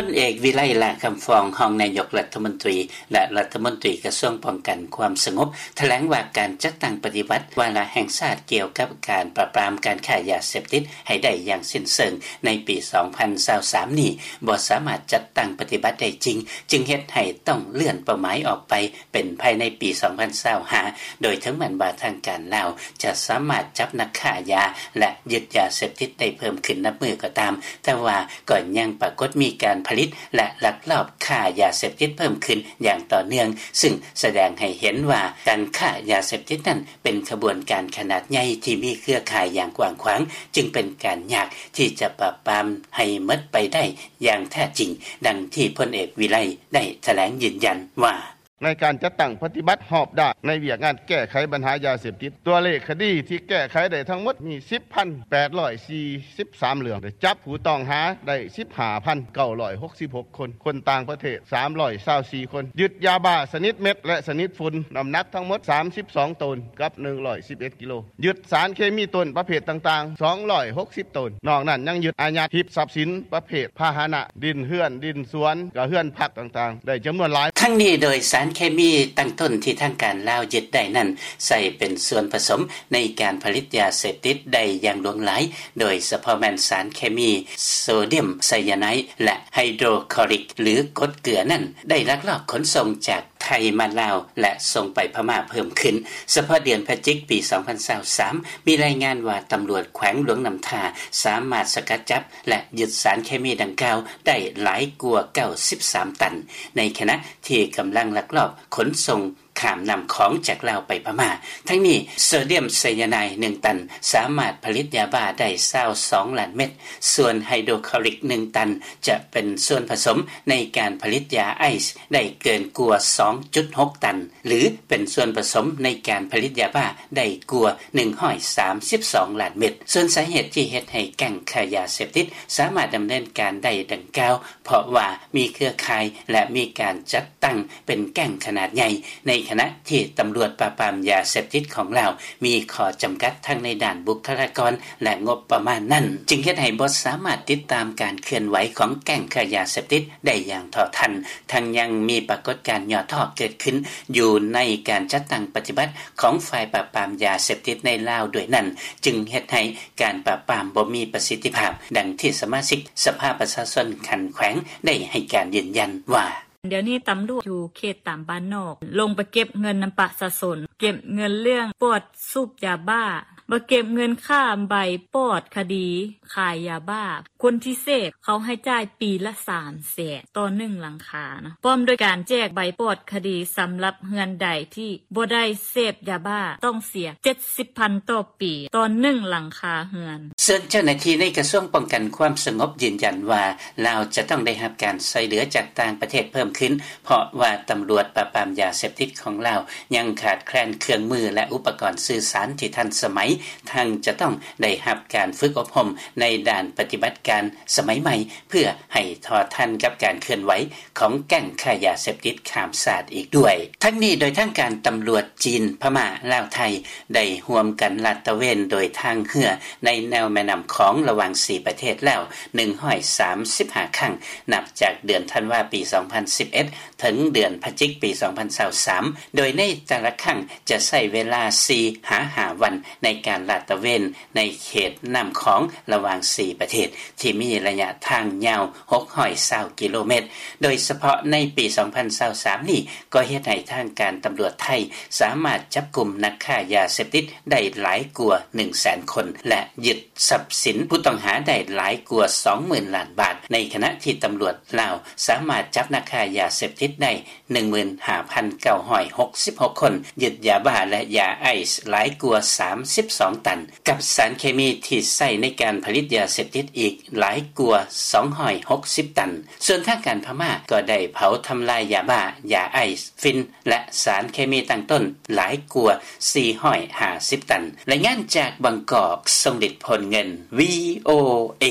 ພົນເອກ ວິໄລ ຫຼ້າຄຳຟອງ ຮອງນາຍົກລັດຖະມົນຕີ ແລະ ລັດຖະມົນຕີກະຊວງປ້ອງກັນຄວາມສະຫງົບ ຖະແຫຼງວ່າການຈັດຕັ້ງປະຕິບັດວາລະແຫ່ງຊາດກ່ຽວກັບການປາບປາມການຄ້າຢາເສບຕິດໃຫ້ໄດ້ຢ່າງສິ້ນເຊີງໃນປີສອງພັນຊາວສາມນີ້ ບໍ່ສາມາດຈັດຕັ້ງປະຕິບັດໄດ້ຈິງ ຈຶ່ງເຮັດໃຫ້ຕ້ອງເລື່ອນເປົ້າໝາຍອອກໄປເປັນພາຍໃນປີສອງພັນຊາວຫ້າ ໂດຍເຖິງແມ່ນວ່າທາງການລາວຈະສາມາດຈັບນັກຄ້າຢາ ແລະ ຍຶດຢາເສບຕິດໄດ້ເພີ່ມຂຶ້ນນັບມື້ກໍຕາມ, ແຕ່ວ່າກໍຍັງປາກົດມີການຜະລິດ ແລະ ລັກລອບຄ້າຢາເສບຕິດເພີ່ມຂຶ້ນຢ່າງຕໍ່ເນື່ອງ, ຊຶ່ງສະແດງໃຫ້ເຫັນວ່າການຄ້າຢາເສບຕິດນັ້ນເປັນຂະບວນການຂະໜາດໃຫຍ່ທີ່ມີເຄືອຂ່າຍຢ່າງກວ້າງຂວາງ, ຈຶ່ງເປັນການຍາກທີ່ຈະປາບປາມໃຫ້ໝົດໄປໄດ້ຢ່າງແທ້ຈິງ, ດັ່ງທີ່ພົນເອກ ວິໄລ ໄດ້ຖະແຫຼງຢືນຢັນວ່າ: ໃນການຈັດຕັ້ງປະຕິບັດຮອບດ້ານໃນວຽກງານແກ້ໄຂບັນຫາຢາເສບຕິດ, ຕົວເລກຄະດີທີ່ແກ້ໄຂໄດ້ທັງໝົດມີສິບພັນແປດຮ້ອຍສີ່ສິບສາມເລື່ອງ, ໄດ້ຈັບຜູ້ຕ້ອງຫາໄດ້ສິບຫ້າພັນເກົ້າຮ້ອຍຫົກສິບຫົກຄົນ, ຄົນຕ່າງປະເທດສາມຮ້ອຍຊາວສີ່ຄົນ, ຍຶດຢາບ້າຊະນິດເມັດ ແລະ ຊະນິດຝຸ່ນ ນ້ຳໜັກທັງໝົດສາມສິບສອງໂຕນກັບໜຶ່ງຮ້ອຍສິບເອັດກິໂລ, ຍຶດສານເຄມີຕົ້ນປະເພດຕ່າງໆສອງຮ້ອຍຫົກສິບໂຕນ. ນອກນັ້ນຍັງຍຶດອາຍັດຮີບຊັບສິນປະເພດພາຫະນະ, ດິນເຮືອນ, ດິນສວນ, ກະເຮືອນພັກຕ່າງໆ ໄດ້ຈຳນວນຫຼາຍ. ທັງນີ້ໂດຍສານເຄມີຕັ້ງຕົ້ນທີ່ທາງການລາວຍຶດໄດ້ນັ້ນ ໃຊ້ເປັນສ່ວນປະສົມໃນການຜະລິດຢາເສບຕິດໄດ້ຢ່າງຫຼວງຫຼາຍ, ໂດຍສະເພາະແມ່ນສານເຄມີໂຊດຽມໄຊຢາໄນ ແລະ ໄຮໂດຣຄລໍລິກ ຫຼື ກົດເກືອນັ້ນ ໄດ້ລັກລອບຂົນສົ່ງຈາກໄທມາລາວ ແລະ ສົ່ງໄປພະມ້າເພີ່ມຂຶ້ນ. ສະເພາະເດືອນພະຈິກປີສອງພັນຊາວສາມ ມີລາຍງານວ່າຕຳຫຼວດແຂວງຫຼວງນ້ຳທາສາມາດສະກັດຈັບ ແລະ ຍຶດສານເຄມີດັ່ງກ່າວໄດ້ຫຼາຍກວ່າເກົ້າສິບສາມຕັນ, ໃນຂະນະທີ່ກຳລັງລັກລອບຂົນສົ່ງຂ້າມນ້ຳຂອງຈາກລາວໄປພະມ້າ. ທັງນີ້ ໂຊດຽມໄຊຢາໄນໜຶ່ງຕັນສາມາດຜະລິດຢາບ້າໄດ້ຊາວສອງລ້ານເມັດ, ສ່ວນໄຮໂດຣຄລໍລິກໜຶ່ງຕັນຈະເປັນສ່ວນປະສົມໃນການຜະລິດຢາໄອສ໌ໄດ້ເກີນກວ່າສອງຈຸດຫົກຕັນ ຫຼື ເປັນສ່ວນປະສົມໃນການຜະລິດຢາບ້າໄດ້ກວ່າໜຶ່ງຮ້ອຍສາມສິບສອງລ້ານເມັດ. ສ່ວນສາເຫດທີ່ເຮັດໃຫ້ແກ້ງຄ້າຢາເສບຕິດສາມາດດຳເນີນການໄດ້ດັ່ງກ່າວ ເພາະວ່າມີເຄືອຂ່າຍ ແລະ ມີການຈັດຕັ້ງເປັນແກ້ງຂະໜາດໃຫຍ່, ໃນຂະນະທີ່ຕຳຫຼວດປາບປາມຢາເສບຕິດຂອງລາວມີຂໍ້ຈຳກັດທັງໃນດ້ານບຸກຄະລາກອນ ແລະ ງົບປະມານນັ້ນ, ຈຶ່ງເຮັດໃຫ້ບໍ່ສາມາດຕິດຕາມການເຄື່ອນໄຫວຂອງແກ້ງຄ້າຢາເສບຕິດໄດ້ຢ່າງເທົ່າທັນ. ທັງຍັງມີປາກົດການຫຍໍ້ທໍ້ເກີດຂຶ້ນຢູ່ໃນການຈັດຕັ້ງປະຕິບັດຂອງຝ່າຍປາບປາມຢາເສບຕິດໃນລາວດ້ວຍນັ້ນ, ຈຶ່ງເຮັດໃຫ້ການປາບປາມບໍ່ມີປະສິດທິພາບ, ດັ່ງທີ່ສະມາຊິກສະພາປະຊາຊົນຂັ້ນແຂວງໄດ້ໃຫ້ການຢືນຢັນວ່າ: ດຽວນີ້ຕຳຫຼວດຢູ່ເຂດຕາມບ້ານນອກ ລົງໄປເກັບເງິນນຳປະຊາຊົນ, ເກັບເງິນເລື່ອງປອດສູບຢາບ້າ, ມາເກັບເງິນຄ່າໃບປອດຄະດີຂາຍຢາບ້າ. ຄົນທີ່ເສບເຂົາໃຫ້ຈ່າຍປີລະສາມແສນຕໍ່ໜຶ່ງຫຼັງຄານະ, ພ້ອມດ້ວຍການແຈກໃບປອດຄະດີສຳລັບເຮືອນໃດທີ່ບໍ່ໄດ້ເສບຢາບ້າ ຕ້ອງເສຍເຈັດສິບພັນຕໍ່ປີຕໍ່ໜຶ່ງຫຼັງຄາເຮືອນ. ສ່ວນເຈົ້າໜ້າທີ່ໃນກະຊວງປ້ອງກັນຄວາມສະຫງົບຢືນຢັນວ່າ ລາວຈະຕ້ອງໄດ້ຮັບການຊ່ວຍເຫຼືອຈາກຕ່າງປະເທດເພີ່ມຂຶ້ນ ເພາະວ່າຕຳຫຼວດປາບປາມຢາເສບຕິດຂອງລາວຍັງຂາດແຄລນເຄື່ອງມື ແລະ ອຸປະກອນສື່ສານທີ່ທັນສະໄໝ, ທັງຈະຕ້ອງໄດ້ຮັບການຝຶກອົບຮົມໃນດ້ານປະຕິບັດການສະໄໝໃໝ່ ເພື່ອໃຫ້ເທົ່າທັນກັບການເຄື່ອນໄຫວຂອງແກ້ງຄ້າຢາເສບຕິດຂ້າມຊາດອີກດ້ວຍ. ທັງນີ້ໂດຍທາງການຕຳຫຼວດຈີນ, ພະມ້າ, ລາວ, ໄທ ໄດ້ຮ່ວມກັນລາດຕະເວນໂດຍທາງເຮືອໃນແນວແມ່ນ້ຳຂອງລະຫວ່າງສີ່ປະເທດແລ້ວໜຶ່ງຮ້ອຍສາມສິບຫ້າຄັ້ງ ນັບຈາກເດືອນທັນວາປີສອງພັນສິບເອັດ ເຖິງເດືອນພະຈິກປີສອງພັນຊາວສາມ ໂດຍໃນແຕ່ລະຄັ້ງຈະໃຊ້ເວລາສີ່ຫາຫ້າວັນໃນການລາດຕະເວນໃນເຂດນ້ຳຂອງລະຫວ່າງສີ່ປະເທດ ທີ່ມີໄລຍະທາງຍາວຫົກຮ້ອຍຊາວກິໂລແມັດ. ໂດຍສະເພາະໃນປີສອງພັນຊາວສາມນີ້ ກໍເຮັດໃຫ້ທາງການຕຳຫຼວດໄທສາມາດຈັບກຸມນັກຄ້າຢາເສບຕິດໄດ້ຫຼາຍກວ່າໜຶ່ງແສນຄົນ ແລະ ຍຶດ ຊັບສິນຜູ້ຕ້ອງຫາໄດ້ຫຼາຍກວ່າສອງໝື່ນລ້ານບາດ, ໃນຂະນະທີ່ຕຳຫຼວດລາວສາມາດຈັບນັກຄ້າຢາເສບຕິດໄດ້ໜຶ່ງໝື່ນຫ້າພັນເກົ້າຮ້ອຍຫົກສິບຫົກຄົນ, ຍຶດຢາບ້າ ແລະ ຢາໄອສ໌ຫຼາຍກວ່າສາມສິບສອງຕັນ, ກັບສານເຄມີທີ່ໃຊ້ໃນການຜະລິດຢາເສບຕິດອີກຫຼາຍກວ່າສອງຮ້ອຍຫົກສິບຕັນ. ສ່ວນທາງການພະມ້າກໍໄດ້ເຜົາທຳລາຍຢາບ້າ, ຢາໄອສ໌, ຝິ່ນ ແລະ ສານເຄມີຕັ້ງຕົ້ນຫຼາຍກວ່າສີ່ຮ້ອຍຫ້າສິບຕັນ. ລາຍງານຈາກບາງກອກ, ຊົງລິດ ໂພນເງິນ, ວີໂອເອ.